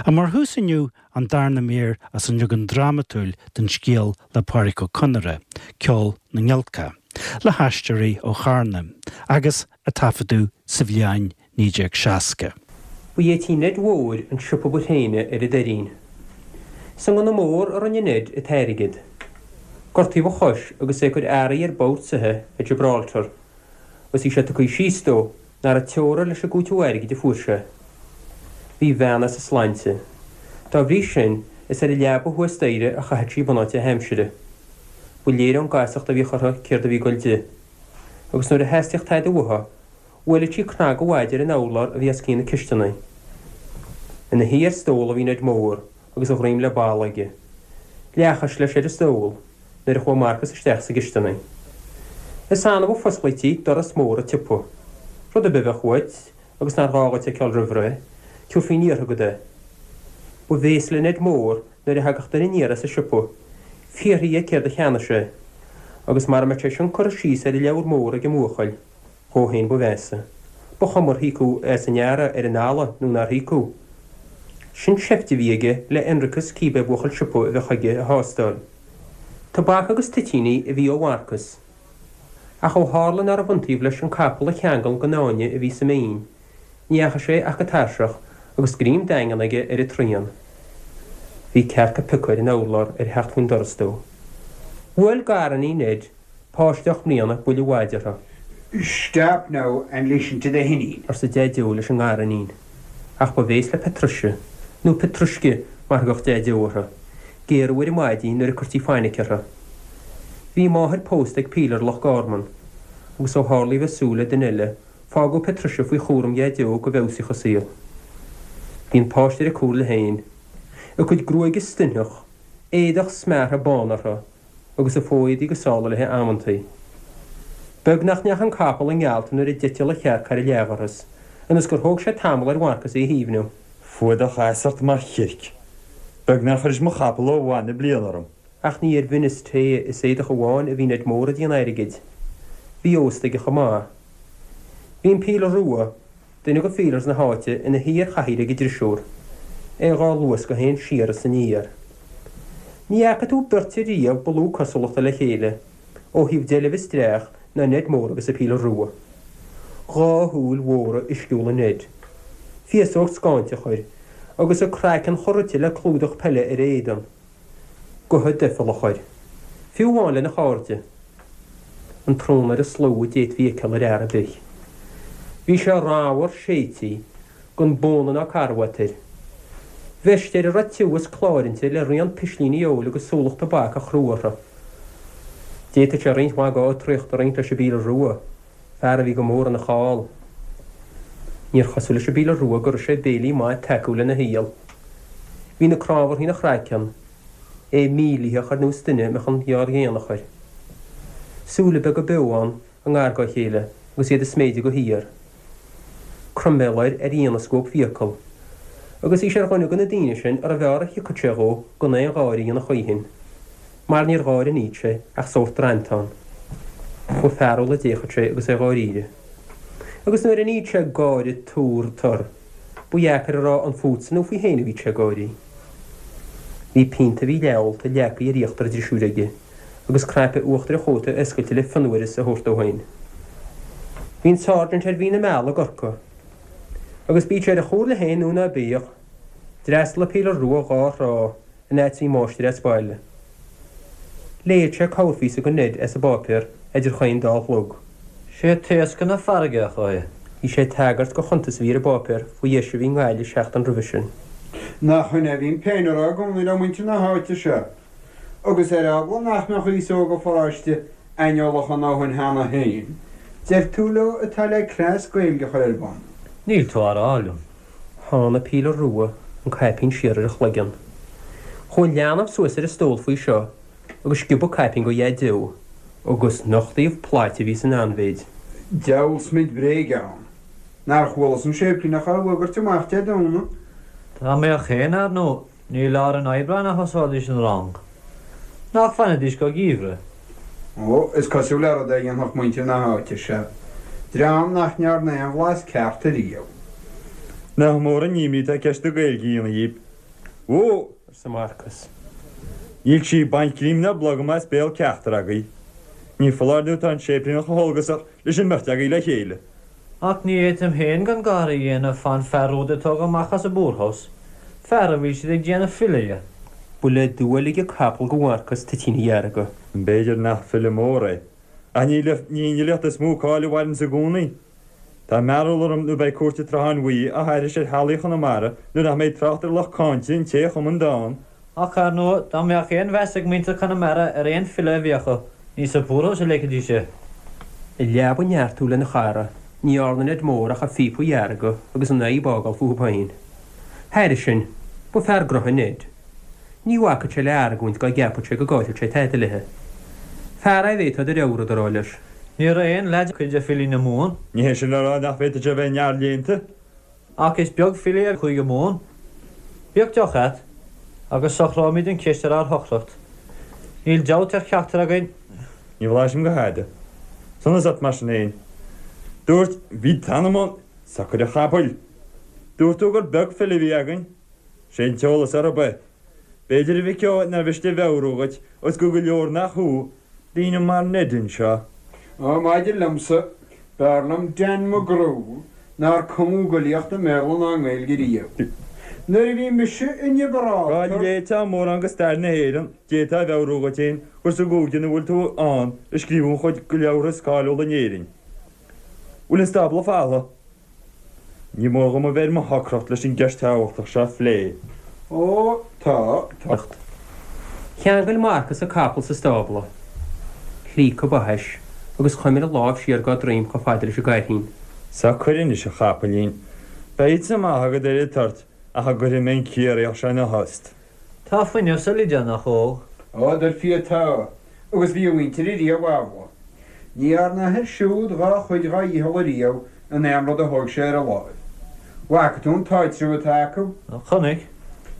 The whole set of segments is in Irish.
Ach mar thús inniu, an darna mír as an leagan drámatúil den scéal le Pádraic Ó Conaire, Ceol na nGiolcach, le hAisteoirí ó Charna, agus a taifeadadh sa bhliain 1960. Ba é tí Ned Mhóir an siopa ba thréine ar an Doirín. Sa ngunna mór a rinne Ned an t-airgead. Gortaíodh a chois agus é ag cur earraí ar bord soitheach i Gibraltar agus bhí sé tugtha síos dó nach raibh teora leis an gcúiteamh airgid a fuair sé. Bhí a bhean as a sláinte. Dá bhrí sin, is ar an leaba thuas staighre a chaitheadh sí bunáite a haimsire. Ba léir ón gcasacht a bhíodh uirthi céard a bhí ag goil di. Agus nuair a theastaíodh tada uaithi, bhuaileadh sí cnag an mhaide ar an urlár a bhí os cionn na cisteanaí. Ina shuí ar stól a bhí Ned Mór agus a dhroim le balla aige. Leathchois leis ar an stól nuair a chuaigh Marcas isteach sa gcisteanaigh. Is annamh a fosclaítí doras mór an tsiopa. Rud ar bith a bheadh uait agus nár ghá dhuit a fheiceáil roimh ré, tabharfaí an iarrtha agat é. Ba bhéas le Ned Mór nuair a thagadh duine aniar as an siopa, fiafraí dhe céard a cheannaigh sé, agus mara mbeadh sé sin curtha síos ar an leabhar mór ag an mbuachaill, dhó féin ba mheasa. Ba chuma ar híocadh as an earra ar an eala nó nár híocadh. Sin seift a bhí aige le hionracas cíbé buachaill siopa a bheadh chuige a thástáil. Tobac agus toitíní a bhí ó Mharcas. Ach ó tharla nárbh iontaoibh leis an capall a cheangal den fháinne a bhí sa mbinn, ní dheachaigh sé ach go tairseach agus greim daingean aige ar an tsrian. Bhí cearc ag piocadh ar an urlár ar theacht faoin doras dó. Bhuail gariníon Ned, páiste 8 mbliana, buille mhaide uirthi. Stop now and listen to the hinín. arsa Deaideo leis an ngariníon. Ach ba bhéas le Patricia, nó Petrushka mar a thugadh Deaideo uirthi, géarú ar an maidí nuair a cuirtí fainic uirthi. Bhí a máthair pósta ag pílear Loch Garman, agus ó tharla í bheith ag súil le duine eile, fágadh Patricia faoi chúram Dhaideo go bhfeabhsaíodh a saol. Bhí an páiste ar a comhairle féin. A cuid gruaige stoitheach, éadach smeartha bán uirthi, agus a fo-éadaí go sála léi amantaí. Beag nach ndeachaigh an capall i ngealt nuair a d'eitil an chearc thar an leathdhoras, ionas gur thóg sé tamall ar Mharcas í a shuaimhniú. Fuadach as ort mar chirc. Beag nár chuiris mo chapall ó mhaith na bliana orm. Ach ní ar mhin is tae is éadach amháin a bhí Ned Mór ag déanamh airgid. Bhí ósta aige chomh maith. Bhí an Pílear Rua, duine de phílears na háite, ina shuí ar chathaoir ag an drisiúr, é dhá luascadh féin siar is aniar. Ní fhaca tú beirt ariamh ba lú cosúlachta le chéile, ó thaobh deilbh is dreach, ná Ned Mór agus an Pílear Rua. 2 shúil mhóra uisciúla Ned. Féasóg scáinteach air, agus a craiceann chomh rite le clúdach peile ar a éadan. Gotha doicheallach air. Fiú amháin lena chairde. An trónaire is lú a d'fhéadfaí a fheiceáil ar fhear ar bith. Bhí sé ramhar séidtí, gan bóna ná carbhat air. Veist air a raibh tiubh is cláir inti le rian pislíní óil agus súlach tobac a chrú orthu. D'fhéadfadh sé roinnt mhaith dá fhiotraíocht a roinnt leis an bPílear Rua, fear a bhí go mór ina cháil. Níor chosúil leis an bPílear Rua go raibh sé béilí maith tacúil ina shaol. Bhí na crábharthaí ina chraiceann, é mílítheach ar nós duine a mbeadh an ghearr-ghéanach air. Súile beaga beo ann i ngar dá chéile agus iad ag sméideadh de shíor. Croiméal air ar dhianascóp fiacal. Agus bhí sé ar dhuine de na daoine sin arbh fhearr a thiocfadh sé dhó gan aon gháire a dhéanamh choíchin. Mar níor gháire a níodh sé ach sórt drantán. Ba fearúil a d'fhéachadh sé agus é dháiríre. Agus nuair a níodh sé gáire tur tur, ba dheacair a rá an fútsa nó faoi féin a bhíodh sé ag gáirí. Bhí pionta a bhí leath-ólta leagtha ar íochtar an drisiúir aige, agus cnaipe uachtair a chóta oscailte le fionnuaras a thabhairt dó féin. Bhí an Sergeant ar mhí na meala i gCorcaigh. Agus bíodh sé ar a chomhairle féin nó ná bíodh, d'fhreastail an Pílear Rua dhá thrá, an fhad is a bhí an máistir as baile. Léigheadh sé corrphíosa do Ned as an bpáipéar idir chaon dá chlog. Sé taoscadh na farraige a chuaigh. Bhí sé ag tagairt do chuntas a bhí ar an bpáipéar faoi dheis a bhí i nGaillimh seachtain roimhe sin. Nach in é a bhím féin a rá i gcónaí le muintir na háite seo. Agus ar eagla nach mbeadh aos óg an pharáiste aineolach a ndóthain cheana féin, deir tú leo atá le cleas Gaeilge a chur ar bun. Níl tú á rá liom. Shánn an Pílear Rua an caipín siar ar a chloigeann. Chuaigh an leanbh suas ar an stól faoi seo agus sciobadh caipín de Dhaideo, agus nochtaíodh plait a bhí san anmhéid. Diabhal smid bréige ann. Nár chualas an séiplíneach á fhuagairt amach Dé Domhnaigh? Dá mbeadh féin, ar ndóigh, ní i lár an Aibreáin a thosóidís an rang. Nach bhfanfaidís go geimhreadh? Ó, is cosúil le rud é a dhéanfadh muintir na háite seo, dream nach ndearna aon bhlas ceart ariamh. Nach mór an imní atá ceist na Gaeilge a dhéanamh dhíob. Ó! arsa Marcas. Níl sí ag baint greim ná blogam as béal ceachtar agaibh. Ní foláir nó tá an séiplíneach chomh heolgasach leis an mbeirt agaibh le chéile. Ach ní fhéadfainn féin gan gáire a dhéanamh fán fear úd a tógadh amach as an bpoorhouse, fear a bhfuil siad ag déanamh file dhe. Ba le dua a lig an capall go Mharcas toitíní dhearga. B'fhéidir nach file mór é, ach ní ní an fhilíocht is mó cáil a mhaireanns i gcónaí. Tá mearbhall orm nó beidh cúirt an tSrutháin Bhuí á haithris ar theaghlaigh Chonamara nuair nach mbeidh trácht ar lucht cáinte an té a chum an dán. Ach, ar ndóigh, dá mbeadh aon mheas ag muintir Chonamara ar aon file a bhí acu, ní sa poorhouse a leigfidís é. I leaba neartú lena chara, ní dhearna Ned Mór ach a phíopa a dheargadh agus an fhadhb a fhágáil fúthu féin. Thairis sin, ba fear gnotha Ned. Ní bhacfadh sé le argóint dá gceapfadh sé go gcaillfeadh sé tada léithe. Fear é a bhféadfá do leabhar a rá leis. Ní raibh aon leaid cuid de filí na Mumhan. Ní hé sin le rá nach bhféadfadh sé a bheith neamhléannta. Ach is beag file i gCúige Mumhan. Bíodh deoch a't, agus socróimid an cheist ar ár shocracht. Níl dabht ar cheachtar againn. Ní bhlaisim go hada. Sonas ort mar sin fhéin. Dúirt, bhí t'anam ann, socair a chapaill! Dúirt tú gur beag file a bhí againn. Sé an t-eolas orthu é. B'fhéidir a mhic ó nár mhiste a mheabhrú dhuit, os go go leor nach thú, daoine mar Ned anseo. Ó, maidir liomsa, b'fhearr liom Dan McGrew nár cumadh i bhfilíocht i mBéarla ná i nGaeilge riamh. Nuair a bhí mise i nGiobráltar. Dá léiteá mórán de stair na hÉireann, d'fhéadfá a mheabhrú dhuit féin gur sa gcúige ina bhfuil tú ann a scríobhadh an chuid de leabhartha is cáiliúla in Éirinn. Bhfuil an stábla folamh? Ní mór dhom a bheith ar mo shocracht leis an gceist thábhachtach seo a phlé. Ó, tá, tá. Cheangail Marcas a capall sa stábla. Shlíoc a ba thaise agus chuimil a lámh siar dá droim chomh fada leis an gcairthín. Socair anois, a chapaillín. Beidh píosa maith agat ar an toirt ach a gcuirfidh mé an Ciarraíoch seo ina thost. Tá fuinneamh sa Loideánach óg. Ó, dar fia tá, agus bhí a mhuintir ariamh amhlaidh. Ní dhearna a athair siúd dhá chuid dhá dhícheall ariamh in aon rud a thóg sé ar a láimh. Bhfaca tú an t-áitreabh atá acu? Chonaic.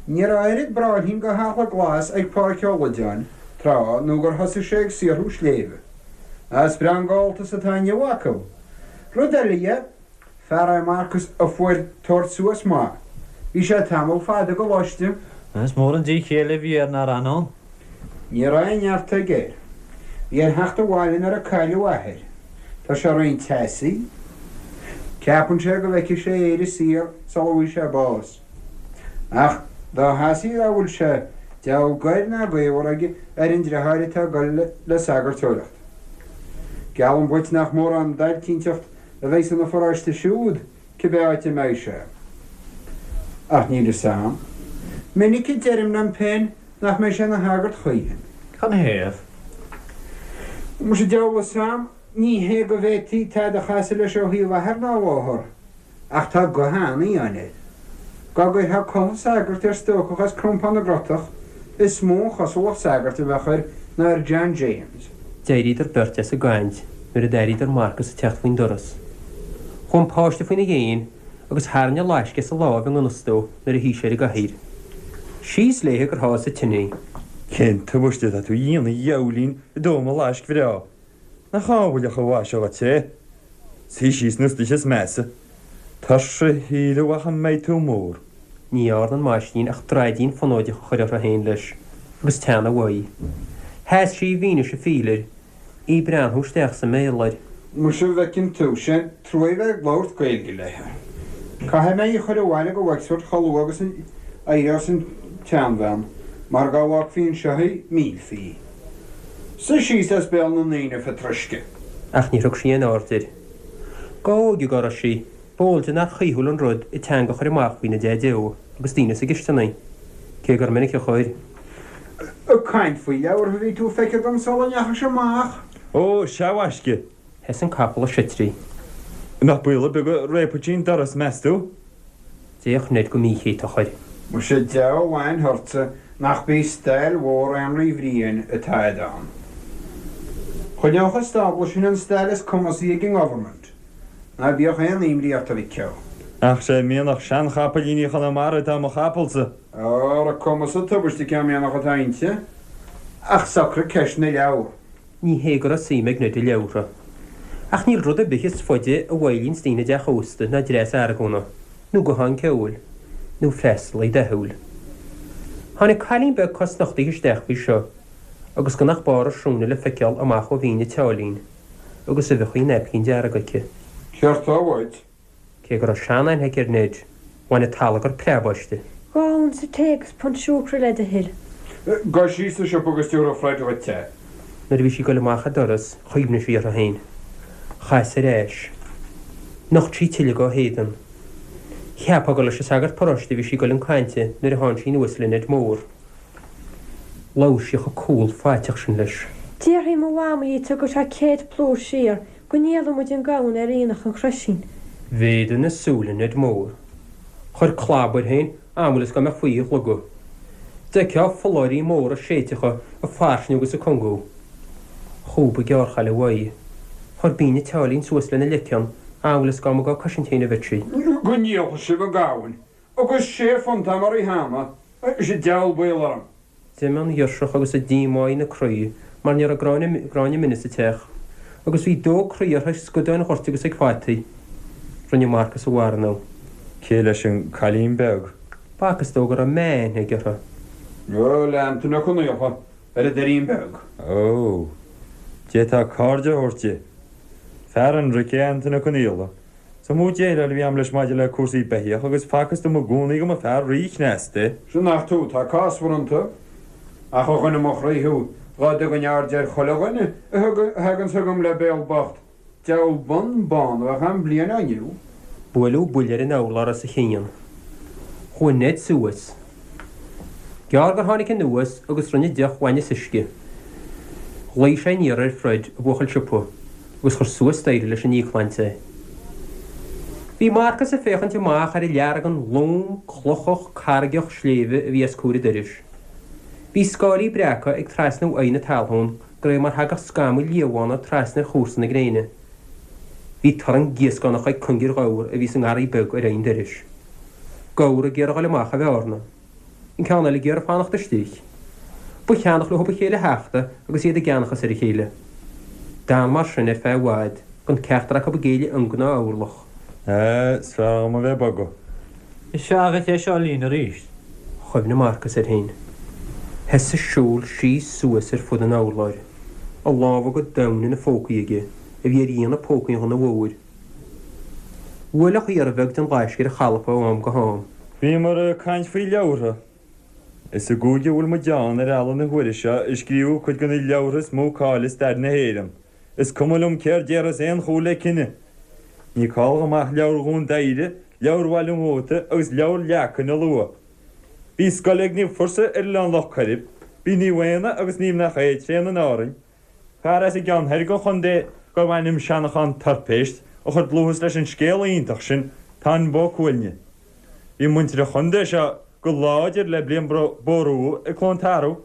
Ní raibh oiread bráithrín go heachla glas ag Pádraic Ó Loideáin tráth nó gur thosaigh sé ag saothrú sléibhe. Is breá an gabháltas atá inniu acu. Rud eile dhe, fear é Marcas a fuair tabhairt suas maith. Bhí sé tamall fada i gcoláiste. Is mór an díth céille a bhí air nár fhan ann. Ní raibh aon neart aige air. Bhí air theacht abhaile nuair a cailleadh a athair. Tá sé roinnt teasaí. Ceapann sé go bhfeicfidh sé Éire saor sula bhfaighidh sé bás. Ach dá theasaí dá bhfuil sé, diabhal goir ná gaobhar aige ar an dreatháir atá ag dul le sagartóireacht. Geallaim dhuit nach mórán dailtínteacht a bheidh san pharóiste siúd cibé áit a mbeidh sé. Ach níl fhios a'm. Minic a deirim liom féin nach mbeidh sé ina shagart choíchin. Canathaobh? Muise diabhal fhios a'm, ní hé go bhféadfaí tada a chasadh leis ó thaobh athar ná mháthar, ach tá guth an-fhiáin air. Dá gcuirfeá culaith sagairt ar stócach as Crompán na gCrotach, is mó an chosúlacht sagairt a bheadh air ná ar John James. D'éiríodar beirt as an gcaint nuair a d'airíodar Marcas ag teacht faoin doras. Chuaigh an páiste faoina dhéin agus tharraing an fhlaisc as a láimh i ngan fhios dó nuair a shuigh sé ar an gcathaoir. Síos léithe gur sháigh sa tine í. Cén tubaiste atá tú a dhéanamh a dhiabhailín ag dó mo fhlaisc bhreá? Nach ábhailleach an mhaise dhuit é? Suigh síos nó istoíche is measa. Tuirse a shíle a mhac a mbeidh tú mór. Ní dhearna an máistrín ach draidín fonóideach a chur uirthi féin leis, agus teannadh uaidh. Sheas sí i bhfianaise phíleir, í ag breathnú isteach sa mbéal air. Muise an bhfeiceann tú, sé an truaigh a bheith ag labhairt Gaeilge léithe. Caithfidh mé í a chur abhaile go Wexford chomh luath agus a éireos an tseanbhean, mar dhá bhfágfaí anseo í, millfí í. Suigh síos as béal na ndaoine, a Phátruisce. Ach níor thug sí aon aird air. Dá óige dá raibh sí, b'eol di nár chaoithiúil an rud a teanga a chur amach faoina deaideo agus daoine sa gcisteanaigh, cé gur minic a chuir. Ag caint faoi leabhartha a bhí tú, feictear dom, sula ndeachais amach. Ó, sea, a mhaisce. Sheas an capall ag seitrí. An mbeadh baol ar bith go réabfadh sí an doras, meas tú? D'fhéach Ned go míchéatach air. Muise diabhal aithne ortsa nach b'í stail mhór Énrí Bhriain atá a'd ann. Choinneodh an stábla sin an stail is cumasaí ag an nGovernment. Ná bíodh aon imní ort a mhic ó. Ach sé mianach seanchapaillíní Chonamara atá i mo chapallsa. Ar a cumas tubaiste cén mianach atá inti. Ach socraigh ceist na leabhar. Ní hé go raibh suim ag Ned i leabhartha. Ach níl rud ar bith is faide a mhoillíonns daoine i dteach ósta ná dreas argóna, nó guthán ceoil, nó freastalaí dathúil. Tháinig cailín beag cosnochtaithe isteach faoi seo agus gan ach barr a srúine le feiceáil amach ó mhín a tseáilín agus uibheachaí naipcín dearg aici. Céard tá uait? Cé go raibh seanaithne aici ar Ned, bhain an t-allagar preab aisti. 2 unsa tae agus punt siúcra le do thoil. Gabh síos sa siopa agus tiúrfaidh Fred dhuit é. Nuair a bhí sí ag goil amach an doras chuimhnigh sí uirthi féin. Chas ar ais. Nocht sí tuilleadh dá héadan. Cheapfá gur leis an sagart paróiste a bhí sí ag goil chun cainte nuair a tháinig sí anuas le Ned Mór. Labhair sí chomh cúl faiteach sin leis. Déarfaidh mo mhamaí dhuit go bhfuil sé 100 plúr siar go ndíolfaidh muid an gamhain ar aonach an Chroisín. Mhéadaigh na súile Ned Mór. Chuir clab air féin amhail is dá mbeadh faoi a shlogadh. D'fheicfeá folláirí móra séidteacha ag fairsingiú agus ag cungú. Chúb an ghearrchaile uaidh. Chuir bean a tseáilín suas lena leiceann amhail is dá mba dhá cosaint féin a bheadh sí. Go ndíolfaidh sibh an gamhain agus sé phunt a'm uirthi cheana, is an diabhal baol orm. D'imigh an ghirseach agus an díomá ina croí mar ní raibh gráinne mine sa teach, agus bhí dó croí uirthi ag scudáin ghoirt agus ag fataí. Rinne Marcas a mharana. Cé leis an cailín beag? B'fhacthas dó go raibh meá-aithne aige uirthi. Ó, le Antaine Ó Conaola, ar an Doirín Beag. Ó, d'fhéadfá cairde a thabhairt di. Fear ionraic é Antaine Ó Conaola. Is iomaí déileáil a bhí a'm leis maidir le cúrsaí beithíoch agus facthas dom i gcónaí go mba fear rí-chneasta é. Sea nach tú atá cásmhar iontu. Ach a dhuine mo chroí thú, dhá dtugainn aird ar chuile dhuine a thaganns chugam le béal bocht, diabhal bonn bán a bheadh a'm bliain ó inniu. Buaileadh buille ar an urlár os a chionn. Chuaigh Ned suas. Gearr gur tháinig anuas agus rinne deoch bhainne is uisce. Ghlaoigh sé aniar ar Fred, a bhuachaill siopa, agus chuir suas staighre leis an íocshláinte é. Bhí Marcas ag féachaint amach ar an leargan lom, clochach, carraigeach sléibhe a bhí os comhair an dorais. Bhí scáilí breaca ag trasnú aghaidh na talún de réir mar thagadh scamaill liathbhána trasna ar chúrsa na gréine. Bhí torann gíoscánach ag cungar ghabhar a bhí sa ngarraí beag ar aghaidh an dorais. Gabhar ag iarraidh a dhul amach a bhearna. An ceann eile ag iarraidh fanacht istigh. Ba cheannach leo a chéile a thachtadh agus iad i gceannachas ar a chéile. D'fhan mar sin ar feadh i bhfad, gan ceachtar acu ag géilleadh ionga ná orlach. Á, is fearr dhom a bheith ag bogadh. Is fearr dhuit é seo a líonadh arís. Chuimhnigh Marcas air féin. Thosaigh siúl síos suas ar fud an urláir, a lámha go domhain ina phócaí aige, a bhí ar dhéanamh pócaí an ghunna mhóir. Bhuailfeadh iarraidh bheag den ghaisce ar a chalpa ó am go ham. Bhíomar ag caint faoi leabhartha. Is i gcúige a bhfuil muid ann ar eala na huaire seo a scríobhadh cuid de na leabhartha is mó cáil i stair na hÉireann. Is cuma liom céard déarfas aon chúl le cine. Ní call dhom ach Leabhar Dhún Doighre, Leabhar Bhaile an Mhóta agus Leabhar Leacain a lua. Bhí scoil ag Naomh Fursa ar Oileán Loch Coirib, bhí Naomh Éanna agus Naomh Nach É tréan in Árainn, Fear as an gceann thoir den chontae gurbh ainm Seanchán Toirpéist a chuir dlúthas leis an scéal iontach sin, Táin Bó Cuailgne. Bhí muintir an chontae seo go láidir le Brian Bórumha ag Cluain Tarbh.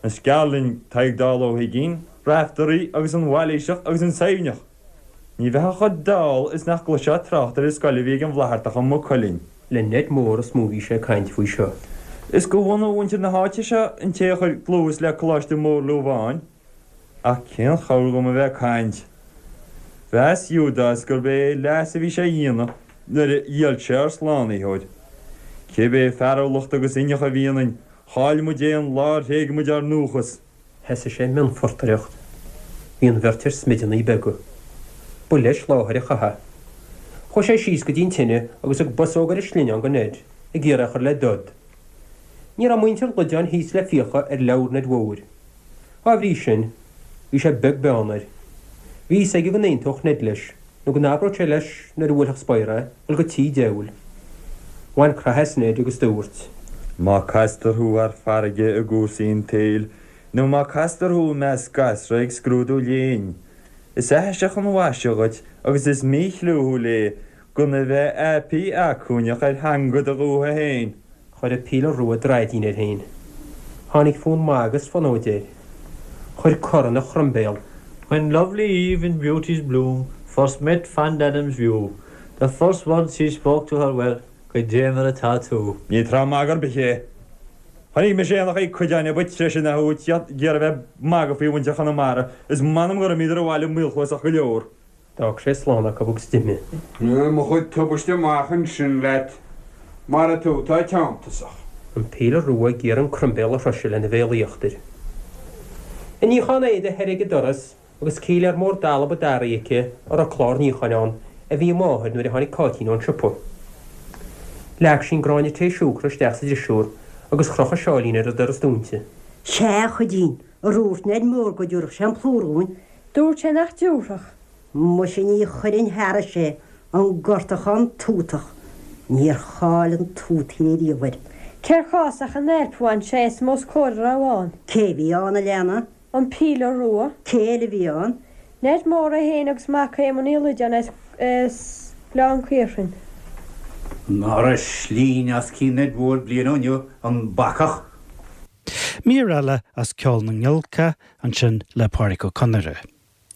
Is gearr linn Tadhg Dall Ó hUiginn, Raiftearaí agus an Mhailíseach agus an Suibhneach. Ní bheifeá chomh dall is nach gcloisfeá trácht ar an scoil a bhí ag an bhFlaitheartach i Maigh Cuilinn. Le Ned Mór is mó a bhí sé ag caint faoi seo. Is go bhunadh mhuintir na háite seo an té a chuir dlúthas le Coláiste Mór Lúbháin. Ach cén chabhair dhom a bheith ag caint? Mheas Iúdás gurb é leas a bhí sé a dhéanamh nuair a dhíol sé ár Slánaitheoir. Cibé fearúlacht agus inneach a bhí ionainn, chaill muid é an lá ar thréig muid ár ndúchas. Thosaigh sé ag mionphortaireacht. Bhí an bheirt ar smideanna beaga. Ba leis láthair an chatha. Chuaigh sé síos go dtí an tine agus thug bosóg ar a shlinneán go Ned, ag iarraidh é a chur le dod. Ní raibh muintir Loideáin thíos le fiacha ar leabhar Ned Mhóir. Dá bhrí sin, bhí sé beag beann air. Bhí fhios aige go n-aontódh Ned leis, nó go n-abródh sé leis nuair a bhuailfeadh spior é, dhul go tí diabhail. Bhain croitheadh as Ned agus dúirt. Má castar thú thar farraige i gcúrsaí an tsaoil, nó má castar thú i measc gasra ag scrúdú léinn, is aithiseach an mhaise dhuit agus is míchlúthúil é gan a bheith aipí acmhainneach ar theanga do dhúiche féin. Chuir an píle rua draidín air féin. Tháinig fonn magaidh is fonóide air. Chuir cor ina chroimbéal. When lovely Eve in beauty's bloom First met fond Adam's view, The first words he spoke to her were, Goidé mar atá tú. Ní tráth magaidh ar bith é. Chonaic mise éanachaí cuideáin a ba treise ná thú ag iarraidh a bheith ag magadh faoi mhuintir Chonamara is m'anam gur imíodar abhaile maolchluasach go leor. D'fhág sé slán acu agus d'imigh. Mo chuid tubaiste amach ansin leat, mar tú atá teanntasach. An pílear rua ag iarraidh an croimbéal a shroiseadh lena bhéal íochtair. Ag níochán éadaigh thoir ag an doras agus cíléar mór dalba daraithe aici a raibh clár níocháin ann a bhí a máthair nuair a tháinig Cáitín ón siopa. Leag sí an gráinne tae siúcra isteach sa drisiúr agus chroch a sáilín ar an doras dúinte. Sea, a Chuidín, ar dhúirt Ned Mór go dtiúrfadh sé an plúr dhúinn? Dúirt sé nach dtiúrfadh. Muise ní chuirfinn thairis é, an gortachán tútach. Níor cháil an tútaire riamh air. Cér chás ach an ailp a bhain sé asam os comhair a raibh ann. Cé bhí ann, a leana? An Pílear Rua. Cé eile a bhí ann? Ned Mór é féin agus mac Éamoinn Uí Loideáin as Gleann Caorthainn. Ná raibh slínne os cionn Ned Mhóir bliain ó inniu, an bacach! Mír eile as Ceol na nGiolcach ansin le Pádraic Ó Conaire.